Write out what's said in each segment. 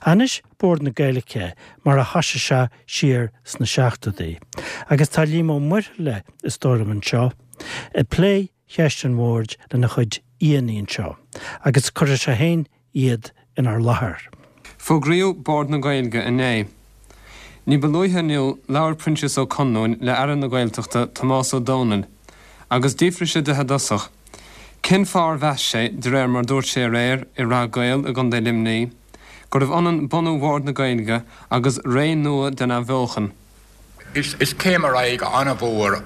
Anois Bord na Gaeilge mar a thoisigh sé siar sna seachtóidí. Agus tá Liam Ó Muirthile is dóigh liom anseo ag plé cheist an bhoird lena chuid aíonna anseo agus cuirfidh sé féin iad inár láthair. Fógraíodh Bord na Gaeilge inné. Ní ba luaithe inniu labhair Proinsias Ó Conluain le Aire na Gaeltachta Tomás Ó Domhnaill agus d'fhiafraigh sé de i dtosach cén fáth ar mheas sé, de réir mar dúirt sé aréir i Rath Caol i gContae Luimnigh, gurbh ionann bunú Bhord na Gaeilge agus ré nua den athbheochan. Is céim ar aghaidh an-mhór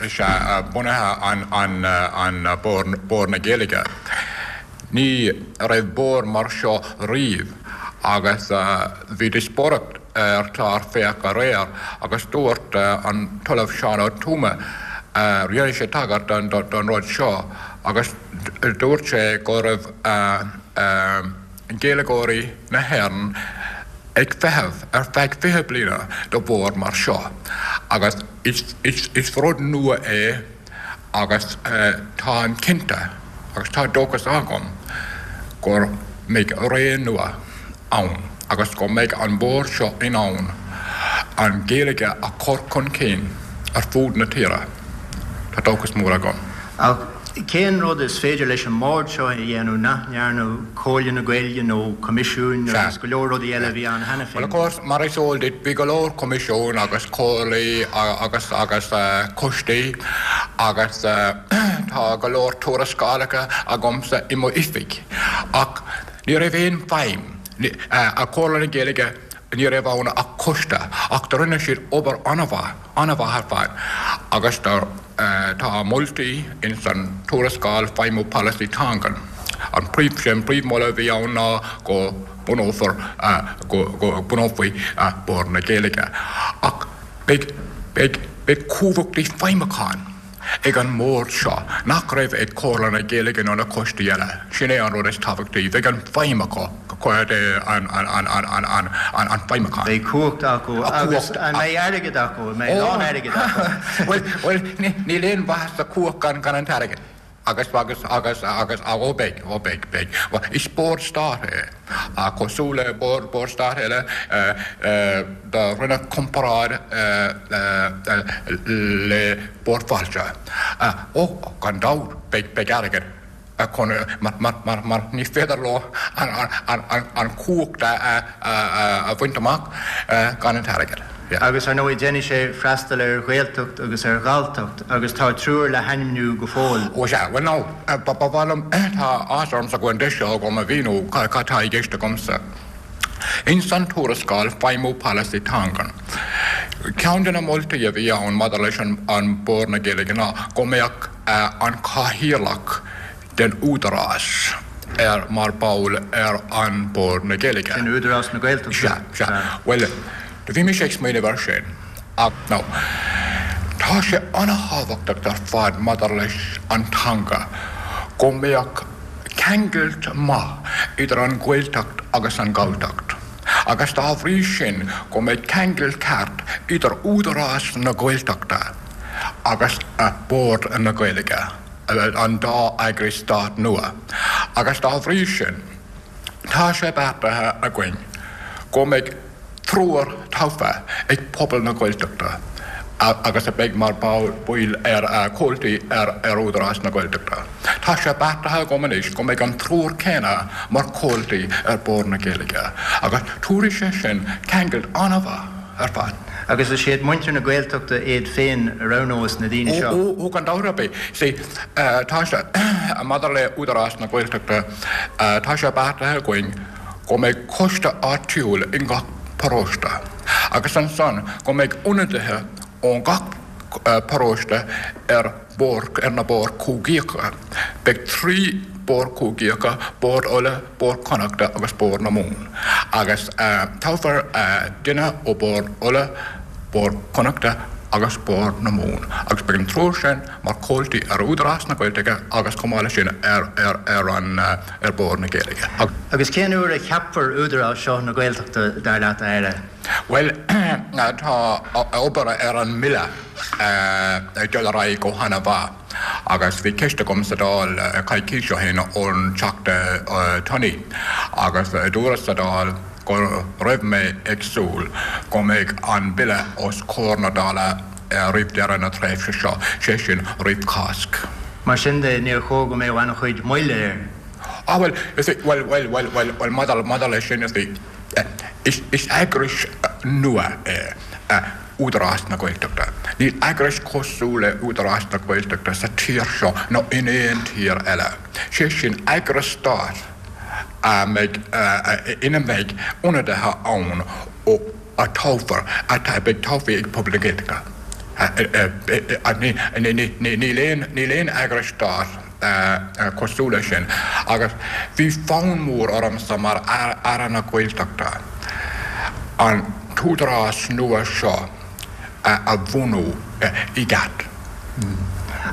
is ea bunaithe an Bord na Gaeilge. Ní raibh bord mar seo riamh agus bhí díospóireacht ar chlár Féach aréir agus dúirt an tOllamh Seán Ó Tuama, rinne sé tagairt don rud seo agus dúirt sé go raibh Gaeilgeoirí na hÉireann ag feitheamh ar feadh 20 bliana do bhord mar seo agus is rud nua é agus táim cinnte agus tá dóchas agam go mbeidh ré nua ann agus go mbeidh an bord seo in ann an Ghaeilge a chur chun cinn ar fud na tíre. Tá dóchas mór agam. Ach cén rud is féidir leis an mbord seo a dhéanamh nach ndearna Comhairle na Gaeilge nó coimisiúin agus go leor rudaí eile a bhí ann cheana féin? Bhuel, of course, mar is eol duit, bhí go leor coimisiún agus comhairlí agus agus coistí agus tá go leor tuarascálacha agamsa i mo oifig ach ní raibh aon feidhm ag Comhairle na Gaeilge, ní raibh ann ach coiste ach do rinne siad obair an-mhaith, an-mhaith ar fad agus do tá moltaí ins an tuarascáil Feidhmiú Polasaí Teangan. An príomh, sé an príomh-mholadh a bhí ann ná go bunófar, go, go bunófaí Bord na Gaeilge. Ach beidh, beidh, beidh cumhachtaí feidhmiúcháin ag an mbord seo nach raibh ag Comhairle na Gaeilge nó na coistí eile. Sin é an rud is tábhachtaí. Bheidh an feidhm acu, an, an, an, an, an, an, an, an feidhmiúchán. Beidh cumhacht acu agus an mbeidh airgead acu? An mbeidh a lán airgid acu? Bhuel, bhuel, níl aon mhaitheas sa chumhacht gan, gan an t-airgead. Agus, agus, agus, agus, ó beidh, ó beidh, beidh. Bhuel, is bord stáit é. Cosúil le bord, bord stáit eile, do rinneadh comparáid le Bord Fáilte. Ó, gan dabht, beidh, beidh airgead chun, mar, mar, mar, mar ní féidir leo an, an, an, an chumhacht a, a, a bhaint amach gan an t-airgead. Yeah. Agus ar ndóigh déanfaidh sé freastal ar Ghaeltacht agus ar Ghalltacht agus tá triúr le hainmniú go fóill. Ó sea, bhuel now, ba mhaith liom, tá áthas ormsa go bhfuil an deis seo agam a mhíniú cad tá i gceist agamsa. Ins an tuarascáil Feidhmiú Polasaí Teangan, ceann de na moltaí a bhí ann maidir leis an Bord na Gaeilge ná go mbeadh an Cathaoirleach den Údarás ar mar ball ar an Bord na Gaeilge. Sin Údarás na Gaeltachta. Sea, sea. Bhuel, do bhí mise ag smaoineamh air sin ach now, tá sé an-thábhachtach ar fad maidir leis an teanga go mbeadh ceangailt maith idir an Ghaeltacht agus an Ghalltacht agus dá bhrí sin go mbeidh ceangal ceart idir Údarás na Gaeltachta agus Bord na Gaeilge. an dá eagras stáit nua, agus dá bhrí sin, tá sé beartaithe againn go mbeidh triúr tofa ag pobal na Gaeltachta agus a bheidh mar bhaill ar comhaltaí ar Údarás na Gaeltachta. Tá sé beartaithe agam anois go mbeidh an triúr céanna mar chomhaltaí ar Bhord na Gaeilge agus tabharfaidh sé sin ceangal an-mhaith ar fad. Agus is iad muintir na Gaeltachta iad féin a roghnós na daoine seo. Ó, gan dabht ar bith. See, tá sé, maidir le Údarás na Gaeltachta, tá sé beartaithe againn go mbeidh coiste áitiúil i ngach paróiste agus ansan go mbeidh ionadaithe ón gach paróiste ar bhord, ar na boird chúigeacha. Beidh 3 bord cúigeacha, Bord Uladh, Bord Connachta agus Bord na Mumhan. Agus toghfar duine ó Bord Uladh, Bord Connachta agus Bord na Mumhan. Agus beidh an triúr sin mar chomhaltaí ar Údarás na Gaeilge agus chomh maith leis sin ar ar an ar Bord na Gaeilge. Agus cén uair a cheapfar Údarás seo na Gaeltachta, dar leat, a Aire? Bhuel, tá obair ar an mBille ag dul ar aghaidh go han-mhaith. Agus bhí ceist agam sa Dáil coicís ó shin ón Teachta Tunney agus dúras sa Dáil go raibh mé ag súil go mbeidh an Bille os comhair na Dála roimh deireadh na tréimhse seo, sé sin roimh Cháisc. Mar sin de, níor chóir go mbeadh an-chuid moille air. Ah bhuel, you see, bhuel, bhuel, bhuel, bhuel, bhuel, maidir, maidir leis sin, you see, is, is eagrais nua é Údarás na Gaeltachta. Níl eagrais cosúil le Údarás na Gaeltachta sa tír seo nó in aon tír eile. Sé sin, eagras stáit a mbeidh, ina mbeidh ionadaithe ann ó, a toghfar, a bheidh tofa ag pobal na Gaeltachta. Níl aon, níl aon eagras stáit cosúil leis sin agus bhí fonn mór ormsa mar Aire na Gaeltachta an t-údarás nua seo a bhunú i gceart.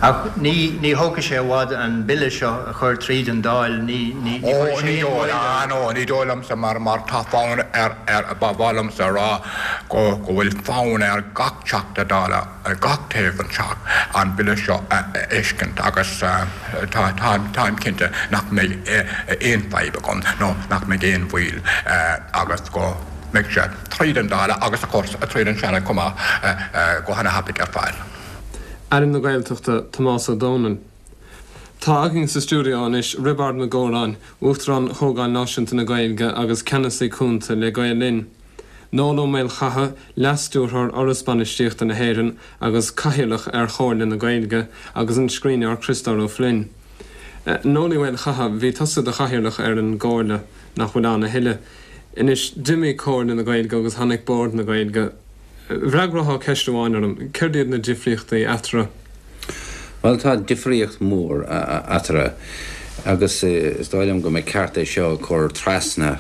Ach ní, ní thógfaidh sé i bhfad an Bille seo a chur tríd an Dáil, ní, ní, ní chuirfidh sé aon mhoill air. Ó, ní, ní dóigh liomsa mar, mar tá fonn ar, ar, ba mhaith liomsa a rá go, go bhfuil fonn ar gach Teachta Dála ar gach taobh den Teach an Bille seo a fheiscint agus tá, táim, táim cinnte nach mbeidh aon fadhb agam nó nach mbeidh aon mhoill agus go mbeidh sé tríd an Dáil agus of course tríd an Seanad chomh maith go hana-thapaidh ar fad. Aire na Gaeltachta, Tomás Ó Domhnaill. Tá againn sa stiúideo anois Roibeárd Mac Góráin, Uachtarán Chomhdháil Náisiúnta na Gaeilge agus Ceannasaí Cúnta le Gael Linn, Noel Ó Maolchatha, Leas-Stiúrthóir Fhoras Bainistíochta na hÉireann agus Cathaoirleach ar Chomhairle na Gaeilge, agus an scríbhneoir Criostóir Ó Floinn. Noel Uí Mhaolchatha, bhí tusa i do chathaoirleach ar an gComhairle, nach bhfuil ann a thuilleadh. Anois, d'imigh Comhairle na Gaeilge agus tháinig Bord na Gaeilge. Bhfreagrófá ceist amháin orm, céard iad na difríochtaí eatarthu? Bhuel, tá difríocht mhór eatarthu agus is dóigh liom go mba ceart é seo a chur trasna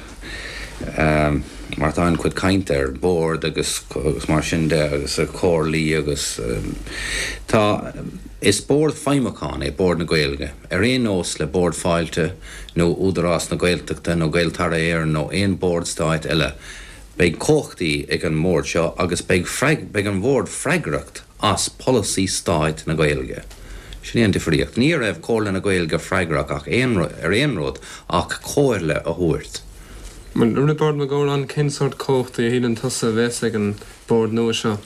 mar tá an-chuid cainte ar bord agus mar sin de agus comhairlí agus tá, is bord feidhmiúcháin é Bord na Gaeilge ar aon nós le Bord Fáilte nó Údarás na Gaeltachta nó Gaeltarra Éireann nó aon bord stáit eile. Beidh cumhachtaí ag an mbord seo agus beidh beidh an bhord freagracht as polasaí stáit na Gaeilge. Sin é an difríocht. Ní raibh Comhairle na Gaeilge freagrach ach aon ar aon rud ach comhairle a thabhairt. Bhuel, Roibeárd Mac Góráin, cén sórt cumhachtaí a shíleann tusa a bheas ag an bord nua seo?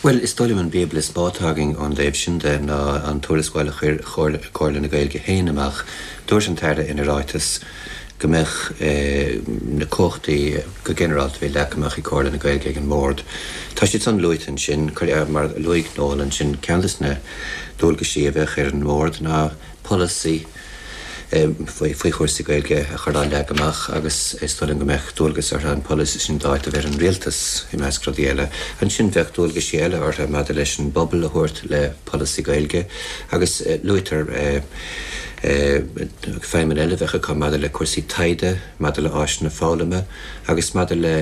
Bhuel, is dóigh liom an bíobla is mó atá againn ón dtaobh sin de ná an tuarascáil a chuir Comhairle na Gaeilge féin amach. Dúirt an tAire ina ráiteas go mbeadh na cumhachtaí go ginearálta a bhí leagtha amach ag Comhairle na Gaeilge ag an mBord. Tá siad san luaite ansin. Mar a luaigh Noel ansin, ceann de na dualgaisí a bheadh ar an mBord ná polasaí, faoi chúrsaí Gaeilge a chur á leagan amach agus is dóigh liom go mbeadh dualgas orthu an polasaí sin d'áiteamh ar an Rialtas, i measc rudaí eile. Ansin bheadh dualgaisí eile orthu maidir leis an bpobal a thabhairt le polasaí Gaeilge agus luaitear feidhmeanna eile a bheadh acu maidir le cúrsaí taighde, maidir le áiseanna foghlama agus maidir le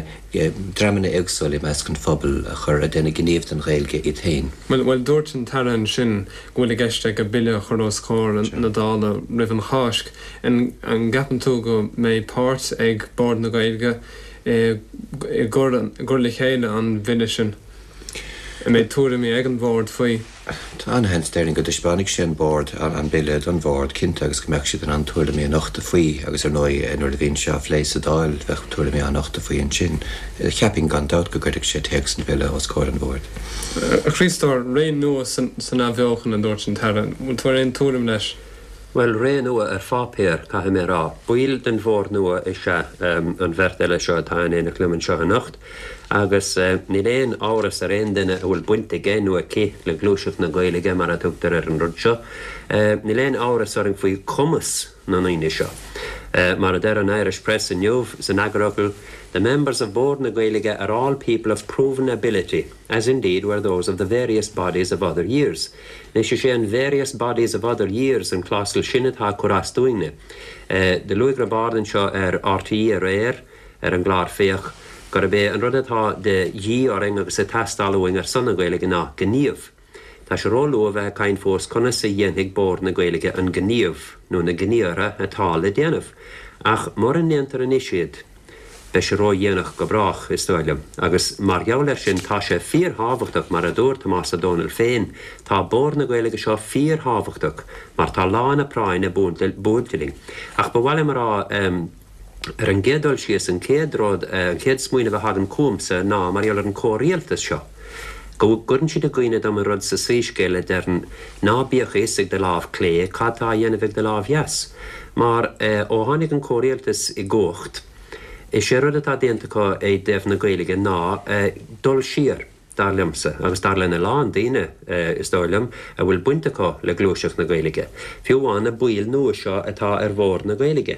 dreamanna éagsúla i measc an phobail a chur ag déanamh gníomh don Ghaeilge iad féin. Bhuel, bhuel, dúirt an tAire ansin go bhfuil i gceist aige bille a chur os comhair na Dála roimh an Cháisc. An gceapann tú go mbeidh páirt ag Bord na Gaeilge i gcur le chéile an bhille sin? An mbeidh tuairimí ag an Bhord faoi? Tá an-sheans, déarfainn, go dtaispeánfaidh sé an Bord an Bille don Bhord, cinnte, agus go mbeadh siad in ann tuairimí a nochtadh faoi agus, ar ndóigh, nuair a bhíonn sé á phlé sa Dáil, bheadh tuairimí á nochtadh faoi ansin. Cheapfainn, gan dabht, go gcuirfeadh sé téacs an Bhille os comhair an Bhoird. A Chriostóir, ré nua san athbheochan, a dúirt an tAire. An bhfuil tú ar aon tuairim leis? Bhuel, ré nua ar pháipéar, caithfidh mé a rá. Baill den Bhord nua is ea an bheirt eile seo atá in éineacht liom anseo anocht. Agus níl aon amhras ar aon duine a bhfuil baint aige nó aici le Gluaiseacht na Gaeilge, mar a tugtar ar an rud seo, níl aon amhras orainn faoi chumas na ndaoine seo. Mar a deir an Irish Press inniu san eagarfhocal, The members of Bord na Gaeilge are all people of proven ability, as indeed were those of the various bodies of other years. Anois is é an various bodies of other years an clásal sin atá ag cur as dúinne. Do luaigh Roibeárd anseo ar RTÉ aréir, ar an gclár Féach, gurb é an rud atá de dhíth orainn agus ag teastáil uainn ar son na Gaeilge ná gníomh. Tá sé róluath a bheith ag caint fós conas a dhéanfaidh Bord na Gaeilge an gníomh, nó na gníomhartha, atá le déanamh. Ach mura ndéantar anois iad, Beidh sé ródhéanach go brách, is dóigh liom. Agus mar gheall air sin, tá sé fíorthábhachtach, mar a dúirt Tomás Ó Dónaill féin, tá Bord na Gaeilge seo fíorthábhachtach mar tá lá na práinne buailte linn. Ach ba mhaith liom a rá, ar an gcéad dul síos, an chéad rud, an chéad smaoineamh a thagann chugamsa ná mar gheall ar an chomhrialtas seo, go gcuireann siad i gcuimhne dom an rud sa Soíscéal a deireann, ná bíodh a fhios ag do lámh clé cad tá á dhéanamh ag do lámh dheas. Mar ó tháinig an comhrialtas i gcumhacht, Is é rud atá déanta acu i dtaobh na Gaeilge ná dul siar, dar liomsa, agus dar lena lán daoine, is dóigh liom, a bhfuil baint acu le gluaiseacht na Gaeilge, fiú amháin na baill nua seo atá ar Bhord na Gaeilge.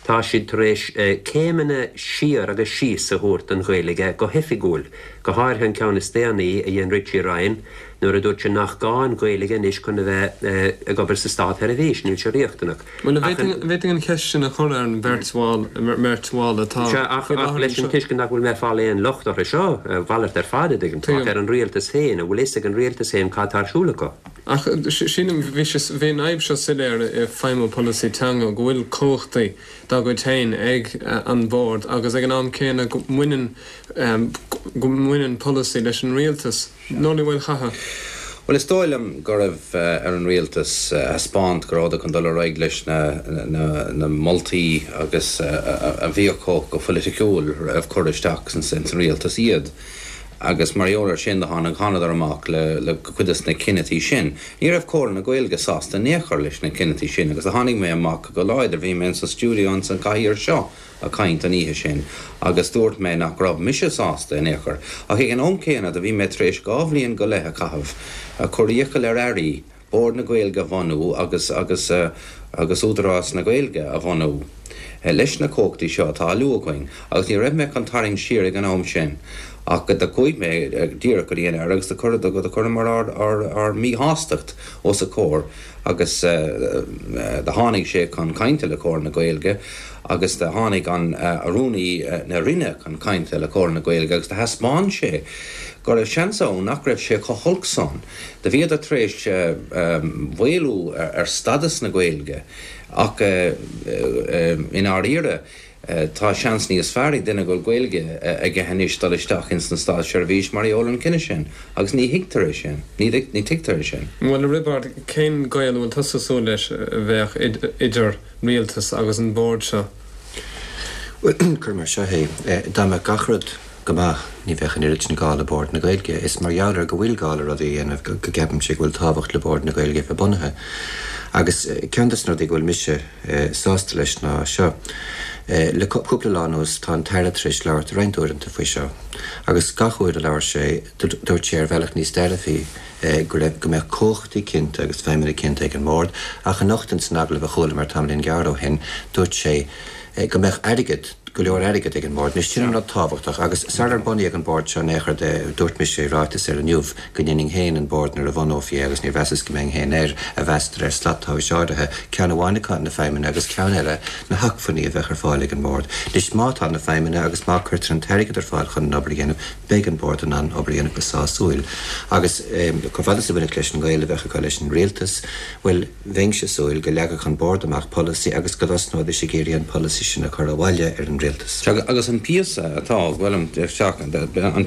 Tá siad tar éis céimeanna siar agus síos a thabhairt don Ghaeilge go hoifigiúil, go háirithe an ceann is déanaí a dhein Richie Ryan nuair a dúirt sé nach gá an Ghaeilge anois chun a bheith ag obair sa státsheirbhís, níl sé riachtanach. Bhuel, an bhféadfainn an cheist sin a chur ar an bheirt bhall, mbeirt bhall atá Sea, ach faoi láthair leis an anseo. tuiscint nach bhfuil mé ag fáil aon locht orthu seo, a mhalairt ar fad, a dtuigeann tú, ach ar an rialtas féin, an bhfuil fhios ag an rialtas féin cad tá ar siúl acu? Ach sílim, bhí sé, bhí an fhadhb seo soiléir i feidhmiú polasaí teanga, go bhfuil cumhachtaí dá gcuid féin ag an bhord agus ag an am céanna go mbaineann, go mbaineann polasaí leis an rialtas. Nollaig Uí Mhaolchatha. Bhuel, is dóigh liom go raibh ar an rialtas a thaispeáint go rabhadar chun dul ar aghaidh leis na moltaí agus a bhí acu go phoiliticiúil roimh cur isteach ins an rialtas iad. Agus mar gheall ar sin do tháinig, thánadar amach le cuid des na cinnití sin. Ní raibh Comhairle na Gaeilge sásta in aon chor leis na cinnití sin agus do tháinig mé amach go láidir, bhí mé ins an stiúideo ins an chathaoir seo, ag caint an oíche sin agus dúirt mé nach raibh mise sásta in aon chor. Ach ag an am céanna do bhí mé tar éis 2 bhliain go leith a chaitheamh ag cur iachall ar airí Bord na Gaeilge a bhunú agus agus agus Údarás na Gaeilge a bhunú leis na cumhachtaí seo atá á lua againn agus ní raibh mé chun tarraingt siar ag an am sin ach do chuaigh mé díreach go dtí an Aire agus do chuireamar ár ár ár míshástacht os a chomhair agus do tháinig sé chun cainte le Comhairle na Gaeilge agus do tháinig an Rúnaí na Roinne chun cainte le Comhairle na Gaeilge agus do thaispeáin sé go raibh seans ann nach raibh sé chomh holc san. Do bhíodar tar éis maolú ar stadas na Gaeilge ach i ndáiríre Tá seans níos fearr ag duine go bhfuil Gaeilge aige anois dul isteach ins an státseirbhís mar gheall ar an cinneadh sin agus ní thuigtear é sin. Ní tuigtear é sin. Bhuel, a Roibeaird, cén gaol a bhfuil tusa ag súil leis a bheadh idir rialtas agus an bord seo? Bhuel, cuir mar seo é, dá mbeadh gach rud go maith, ní bheadh an oiread sin gá le Bord na Gaeilge. Is mar gheall ar go bhfuil gá le rudaí a dhéanamh go gceapaimse go bhfuil tábhacht le Bord na Gaeilge a bheith bunaithe. Agus ceann des na rudaí go bhfuil mise sásta leis ná seo. Le cúpla lá anuas tá an tAire tar éis labhairt roinnt uaireanta faoi seo agus gach uair a labhair sé dúirt sé ar bhealach níos dearfaí go raibh, go mbeadh cumhachtaí cinnte agus feidhmeanna cinnte ag an mBord ach anocht ins an agallamh a chualamar tamaillín gearr ó shin dúirt sé go mbeadh airgead, go leor airgid ag an mBord. Anois sin an rud tábhachtach agus sarar bunaíodh an Bord seo in aon chor de dúirt mise i ráiteas ar Inniu go ndéanfainn féin an Bord nuair a bhunófaí é agus níor mheasas go mbeinn féin air a mheas de réir slat tomhais áirithe, ceann amháin acu na feidhmeanna agus ceann eile na hacmhainní a bheadh ar fáil ag an mBord. Anois má tá na feidhmeanna agus má cuirtear an t-airgead ar fáil chun an obair a dhéanamh beidh an Bord in ann obair a dhéanamh go sásúil. Agus chomh fada is a bhainfeadh leis an ngaol a bheadh acu leis an rialtas, bhuel, Bheinnse ag súil go leagfadh an Bord amach polasaí agus go dtosnóidís ag iarraidh an polasaí sin a chur abhaile ar an rialtas. Agus an píosa atá, bhuel, an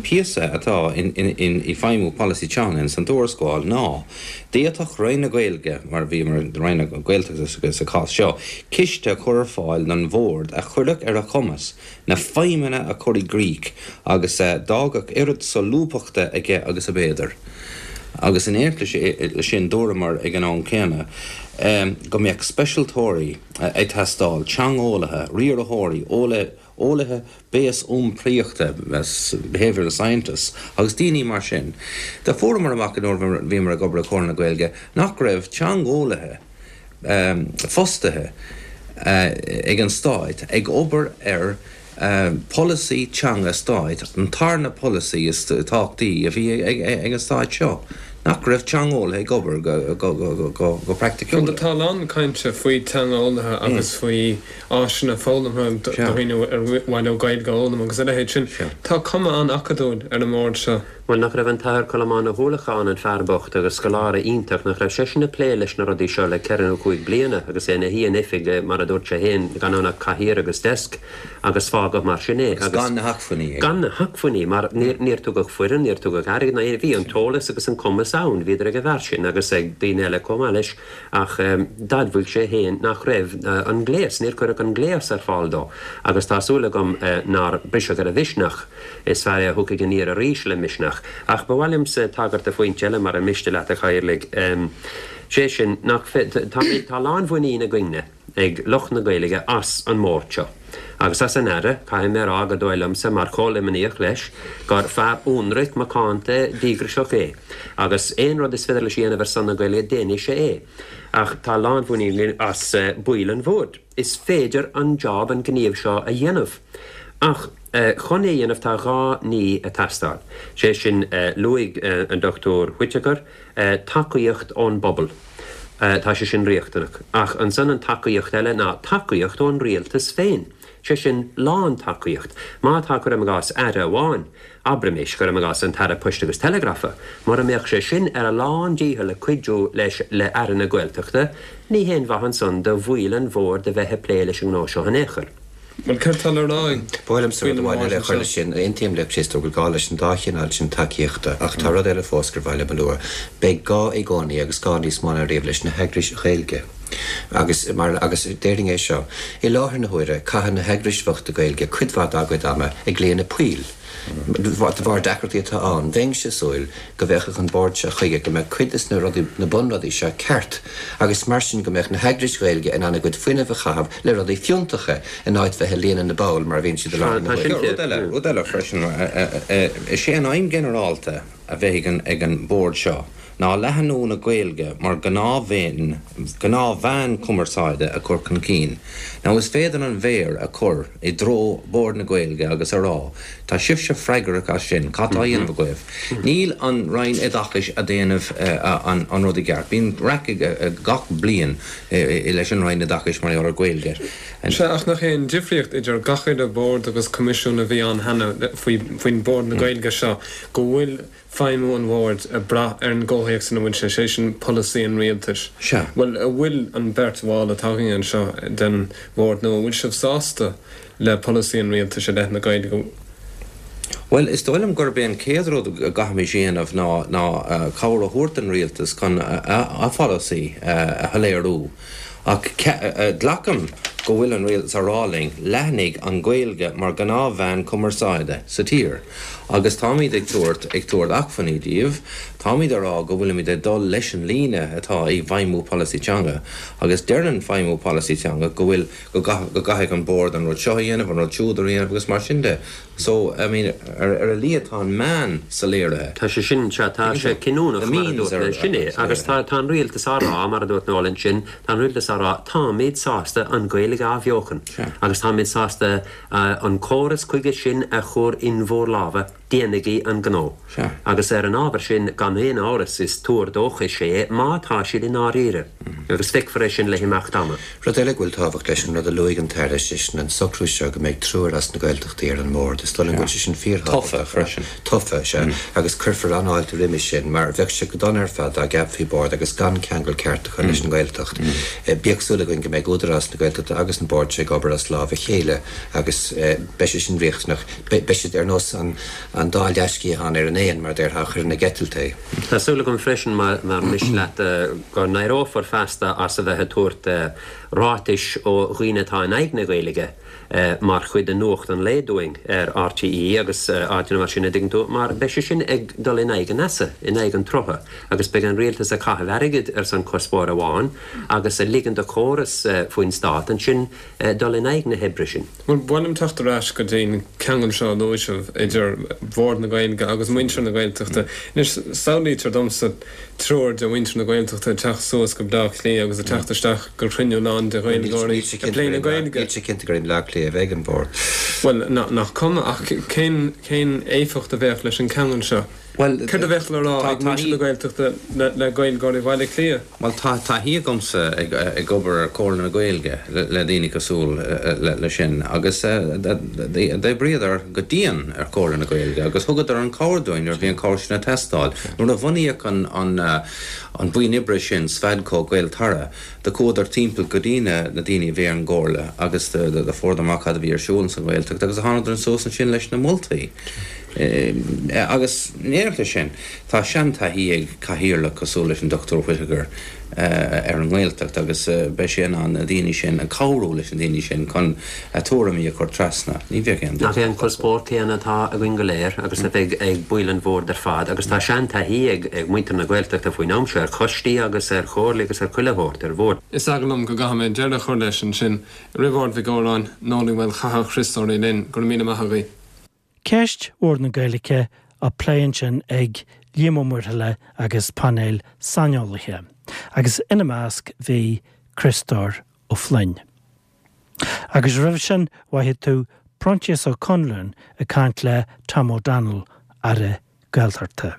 píosa atá in i feidhmiú polasaí teanga ins an tuarascáil ná, d'fhéadfadh Roinn na Gaeilge, mar a bhí Roinn na Gaeltachta sa chás seo, ciste a chur ar fáil don Bhord a chuirfeadh ar a chumas na feidhmeanna a chur i gcrích agus a d'fhágfadh oiread solúbthachta aige agus ab fhéidir. Agus in éineacht leis sin dúramar ag an am céanna go mbeadh speisialtóirí ag teastáil, teangeolaithe, riarthóirí, eolaithe béas-iompraíochta, behavioural scientists, agus daoine mar sin. Do fuaireamar amach nuair a bhíomar ag obair i Comhairle na Gaeilge nach raibh teangeolaithe, fostaithe ag an Stáit ag obair ar pholasaí teanga stáit, an tarna polasaí is tábhachtaí a bhí ag an Stáit seo, nach raibh teangeolaithe ag obair go praiticiúil. Tá a lán cainte faoi teangeolaithe agus faoi áiseanna foghlamtha do dhaoine ar mhaith leo Gaeilge a fhoghlaim agus a leithéid sin. Tá cuma an-acadúil ar an mbord seo. Bhuel, nach raibh an tAthair Colmán Ó hUallacháin, an fear bocht agus scoláire iontach, nach raibh seisean ag plé leis na rudaí seo le ceithre nó chúig bliana agus é ina shuí in oifig, mar a dúirt sé féin, gan ann ach cathaoir agus deasc agus fágadh mar sin é. Agus gan na hacmhainní aige. Gan na hacmhainní, mar níor tugadh foireann, níor tugadh airgead ná aon, bhí an t-eolas agus an cumas ann, bhíodar ag an bhfear sin agus ag daoine eile chomh maith leis ach d'admhaigh sé féin nach raibh an gléas, níor cuireadh an gléas ar fáil dó agus tá súil agam nár briseadh ar a mhisneach. Is fear é a thiocfaidh aniar arís le misneach. Ach ba mhaith liomsa tagairt do phointe eile, mara miste leat, a Chathaoirligh. Sé sin, nach, tá, tá lánmhuinín againne, ag lucht na Gaeilge, as an mbord seo. Agus as an Aire, caithfidh mé a rá go dóigh liomsa, mar chomh-Luimníoch leis, gur fear ionraic, macánta, díograiseach é. Agus aon rud is féidir leis a dhéanamh ar son na Gaeilge, déanfaidh sé é. Ach tá lánmhuinín againn as baill an bhoird. Is féidir an job, an gníomh seo a dhéanamh. Ach chun é a dhéanamh tá dhá ní ag teastáil. Sé sin, luaigh an Dr Whitaker, tacaíocht ón bpobal. Tá sé sin riachtanach. Ach ansan an tacaíocht eile ná tacaíocht ón rialtas féin. Sé sin, lán-tacaíocht. Má tá, cuirim i gcás, Aire amháin, abraimis, cuirim i gcás, an tAire Poist agus Teileagrafa, mura mbeadh sé sin ar a lán-dícheall ag cuidiú leis le Aire na Gaeltachta, ní haon mhaith ansan do bhaill an bhoird a bheith ag plé leis an ngnó seo in aon chor. Bhuel, céard tá le rá ag Ba mhaith liomsa rud amháin eile a chur leis sin. Aontaím le Críostóir go bhfuil gá leis an dá chineál sin tacaíochta ach tá rud eile fós gur mhaith liom a lua. Beidh gá i gcónaí agus gá níos mó ná riamh leis na heagrais Ghaeilge. Agus mar agus déarfainn é seo, i láthair na huaire caitheann na heagrais bhochta Gaeilge cuid mhaith dá gcuid ama ag líonadh poill. De bharr deacrachtaí atá ann, bheinnse ag súil go bhféachfadh an Bord seo chuige go mbeadh cuid des na rudaí, na bunrudaí seo ceart agus mar sin go mbeadh na heagrais Ghaeilge in ann a gcuid fuinnimh a chaitheamh le rudaí fiúntacha in áit bheith ag líonadh na bpoll mar a bhíonn siad i láthair na huaire. Rud eile, rud eile freisin, is é an aidhm ghinearálta a bheidh ag an Bord seo ná leathnú na Gaeilge mar ghnáthmheán cumarsáide a chur chun cinn. Now is féidir an mhéar a chur i dtreo Bord na Gaeilge agus a rá, tá sibhse freagrach as sin, cad tá á dhéanamh agaibh? Níl an Roinn Oideachais a' déanamh an rud i gceart. Bíonn raic gach bliain leis an Roinn Oideachais mar gheall ar Ghaeilge. Sea, ach nach é an difríocht idir gach uile bhord agus coimisiún a bhí ann cheana faoin Bhord na Gaeilge seo go bhfuil feidhmiú an bhoird ag brath ar an gcomhthéacs ina bhfuil sé, sé sin polasaí an rialtais. Sea. Bhuel, an bhfuil an bheirt bhall atá againn anseo den bhord nua, an bhfuil sibh sásta le polasaí an rialtais i leith na Gaeilge? Bhuel, is dóigh liom gurb é an chéad rud a gcaithfimis a dhéanamh ná ná cabhair a thabhairt don rialtas chun a pholasaí a shoiléiriú. Ach glacaim go bhfuil an rialtas á rá linn, leathnaigh an Ghaeilge mar ghnáthmheán cumarsáide sa tír. Agus táimid ag tabhairt ag tabhairt acmhainní díobh, táimid á rá go bhfuilimid ag dul leis an líne atá i bhfeidhmiú polasaí teanga. Agus deireann feidhmiú polasaí teanga go bhfuil go gcaithfidh an bord an rud seo a dhéanamh, an rud siúd a dhéanamh agus mar sin de. So, I mean, ar a laghad tá an meán soiléirithe. Tá sé sin, sea, tá sé cinniúnach, mar a dúirt mé, sin é. Agus tá, tá an rialtas á rá, mar a dúirt Noel ansin, tá an rialtas á rá, táimid sásta an Ghaeilge a athbheochan agus táimid sásta an córas chuige sin a chur in bhur lámha, déanaigí an gnó. Agus ar an ábhar sin, gan aon amhras, is tuar dóchais é má tá siad i ndáiríre. Agus feicfear é sin le himeacht ama. Rud eile go bhfuil tábhacht leis, an rud a luaigh an tAire, sé sin an socrú seo go mbeidh triúr as na Gaeltachtaí ar an mbord. Is dóigh liom go bhfuil sé sin fíorthábhachtach. Tofa freisin. Tofa, sea. Agus cuirfear an-fháilte roimis sin, mar bheadh sé go dona ar fad dá gceapfaí bord agus gan ceangal ceart acu leis an nGaeltacht. Bíodh súil againn go mbeidh Údarás na Gaeltachta agus an bord seo ag obair as lámh a chéile agus beidh sé sin riachtanach. Beidh siad ar nós an dá leathsciathán ar an éan, mar a déarfá, a chuireann ag eitilt é. Tá súil agam freisin, mar miste leat, go n-éireofar feasta as a bheith ag tabhairt ráitis ó dhaoine atá in aghaidh na Gaeilge mar chuid de nuacht an lae dúinn ar RTÉ agus áiteanna mar sin, a dtuigeann tú, mar beidh sé sin ag dul in aghaidh an easa, in aghaidh an tsrutha, agus beidh an rialtas ag caitheamh airgid ar son cuspóir amháin agus ag ligean do chóras faoin stát ansin dul in aghaidh na hoibre sin. Bhuel, ba mhaith liom teacht ar ais go dtí an ceangal seo a luaigh sibh idir Bord na Gaeilge agus muintir na Gaeltachta. Anois, samhlaítear domsa triúr de mhuintir na Gaeltachta ag teacht suas go Bleá Cliath agus ag teacht isteach go cruinniú lán de Ghaeilgeoirí ag plé na Gaeilge. Níl sé cinnte gur i mBleá Cliath a bheidh an Bord. Bhuel, nach cuma, ach cén, cén éifeacht a bheadh leis an cheangal seo? Bhuel, Céard a bheadh le rá ag muintir na Gaeltachta le Gaeilgeoirí Bhaile Átha Cliath? Bhuel, tá taithí agamsa ag obair ar Chomhairle na Gaeilge le daoine cosúil le sin agus d'oibríodar go dian ar Chomhairle na Gaeilge agus thugadar an chabhair dúinn nuair a bhí an chabhair sin ag teastáil. Nuair a bhunaíodh an bhuíon oibre sin, Sfadco, Gaeltarra, do chuadar timpeall go dtí na daoine a bhí ar an gComhairle agus do fuaireadar amach cad a bhí ar siúl sa Ghaeltacht agus thánadar suas ansin leis na moltaí. Agus in éineacht leis sin, tá seantaithí ag cathaoirleach cosúil leis an Dr Whitaker ar an nGaeltacht agus beidh sé in ann na daoine sin, cabhrú leis na daoine sin chun a tuairimí a chur trasna. Ní bheadh aon Nach é an cuspóir céanna atá againn go léir agus a bheidh ag baill an bhoird ar fad agus tá seantaithí ag muintir na Gaeltachta faoin am seo ar choistí agus ar chomhairlí agus ar chuile shórt ar bhoird. Is eagal liom go gcaithfidh mé deireadh a chur leis ansin. Riobard Mhic Góráin, Noel Uí Mhaolchatha, Criostóir Uí Fhloinn, go raibh míle maith agaibh. Ceist Bhord na Gaeilge á plé ansin ag Liam Ó Muirthile agus painéal saineolaithe, agus ina measc bhí Criostóir Ó Floinn. Agus roimhe sin mhoithigh tú Proinsias Ó Conluain ag caint le Tom O'Donnell, Aire Gaeltachta.